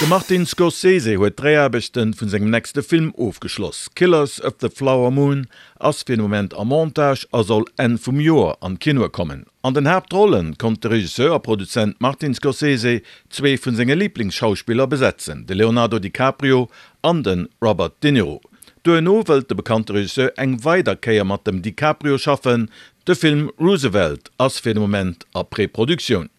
De Martin Scorsese huet d'Dréiaarbechte vun sengem nächste Film ofgeschloss. Killers of the Flower Moon ass fir de Moment am Montage a soll Enn vum Joer an d'Kinoe kommen. An den Haaptrolle konnt de Regisseur a Produzent Martin Scorsese zwee vun senge Liblingsschauspiller besetzen, de Leonardo DiCaprio an de Robert De Niro. Duerno wëllt de bekannte Regisseur eng weider Kéier mat dem DiCaprio schaffen. De Film Roosevelt ass fir de Moment a Preproduktioun.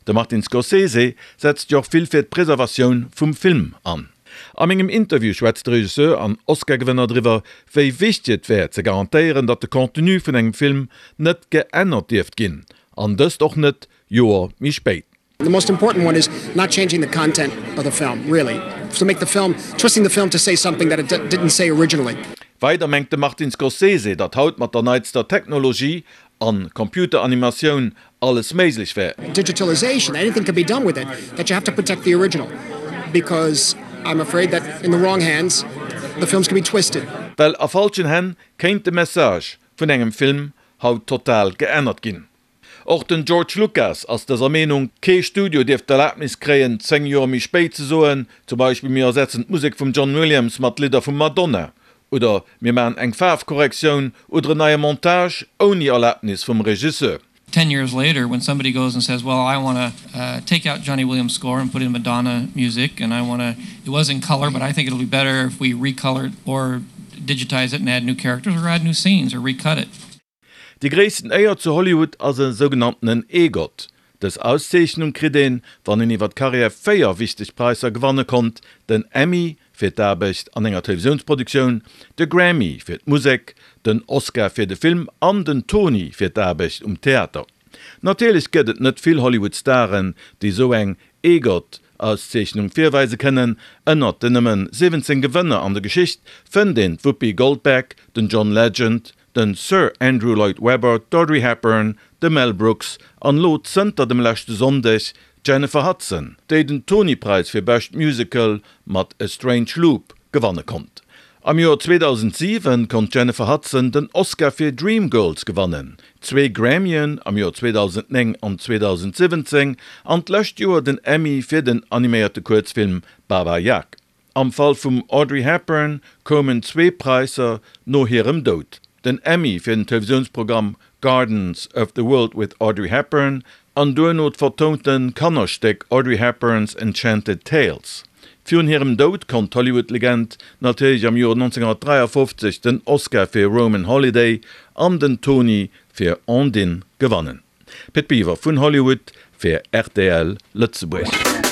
De Martin Scorsese setzt jo och vill fir d'Preservatioun vum Film an. A mengem Interview schwätzt de Regisseur an Oscar-Gewënner driwwer, wéi wichteg et wär ze garantéieren, datt de Contenu vun engem Film net geännert dierft ginn, an dëst och net Joer méi spéit. The most important one is not changing the content of the film, really, to make the film, twisting the film to say something that it didn't say originally. Weider mengt de Martin Scorsese, datt haut mat der neitster Technologie an Computeranimatioun alles méiglech wär. Digitalization, anything can be done with it, that you have to protect the original, because I'm afraid that in the wrong hands, the films can be twisted. Well a falschen Hänn kéint de Message vun engem Film haut total geännert ginn. Och den George Lucas ass dëser Meenung, Kee Studio dierft d'Erlabnis kréien, 10 Joer méi spéit ze soen, zum Beispill mir ersetzen d'Musek vum John Williams mat Lidder vum Madonna oder mir maachen eng Faarfkorrektioun oder en neie Montage ouni Erlabnis vum Regisseur. 10 years later when somebody goes and says well I want to take out Johnny Williams score and put in Madonna music and I want to it was in color but I think it'll be better if we recolor it or digitize it and add new characters or add new scenes or recut it. Déi gréissten Éier zu Hollywood ass e sougenanntenen EGOT. Dës Auszeechnung kritt een, wann een iwwer d'Karriär 4 wichteg Praisser gewanne konnt, den Emmy fir d'Aarbecht an enger Televisiounsproduktioun, de Grammy fir d'Musek, den Oscar fir de Film an den Tony fir d'Aarbecht um Theater. Natierlech gëtt et net vill Hollywood-Staren, déi esou eng EGOT-Auszeechnung virweise kënnen. Ënnert den nëmmen 17 Gewënner an der Geschicht fënnt een d'Whoopi Goldberg, den John Legend, den Sir Andrew Lloyd Webber, d'Audrey Hepburn, de Mel Brooks an elo zënter dem leschte Sonndeg d'Jennifer Hudson, déi den Tony-Präis fir bescht Musical mat A Strange Loop gewanne konnt. Am Joer 2007 konnt d'Jennifer Hudson den Oscar fir Dreamgirls gewannen, zwee Grammyen am Joer 2009 an 2017 an d'lescht Joer den Emmy fir den animéierte Kuerzfilm Baba Yag. Am Fall vum Audrey Hepburn koumen zwee Präisser no hirem Doud, den Emmy fir den Televisiounsprogramm Gardens of the World with Audrey Hepburn an duerno d'vertounte Kannerstéck Audrey Hepburn's Enchanted Tales. Virun hirem Doud konnt d'Hollywood-Legend natierlech am Joer 1953 den Oscar fir Roman Holiday an den Tony fir Ondine gewannen. Pit Biwer vun Hollywood fir rtl Lëtzebuerg.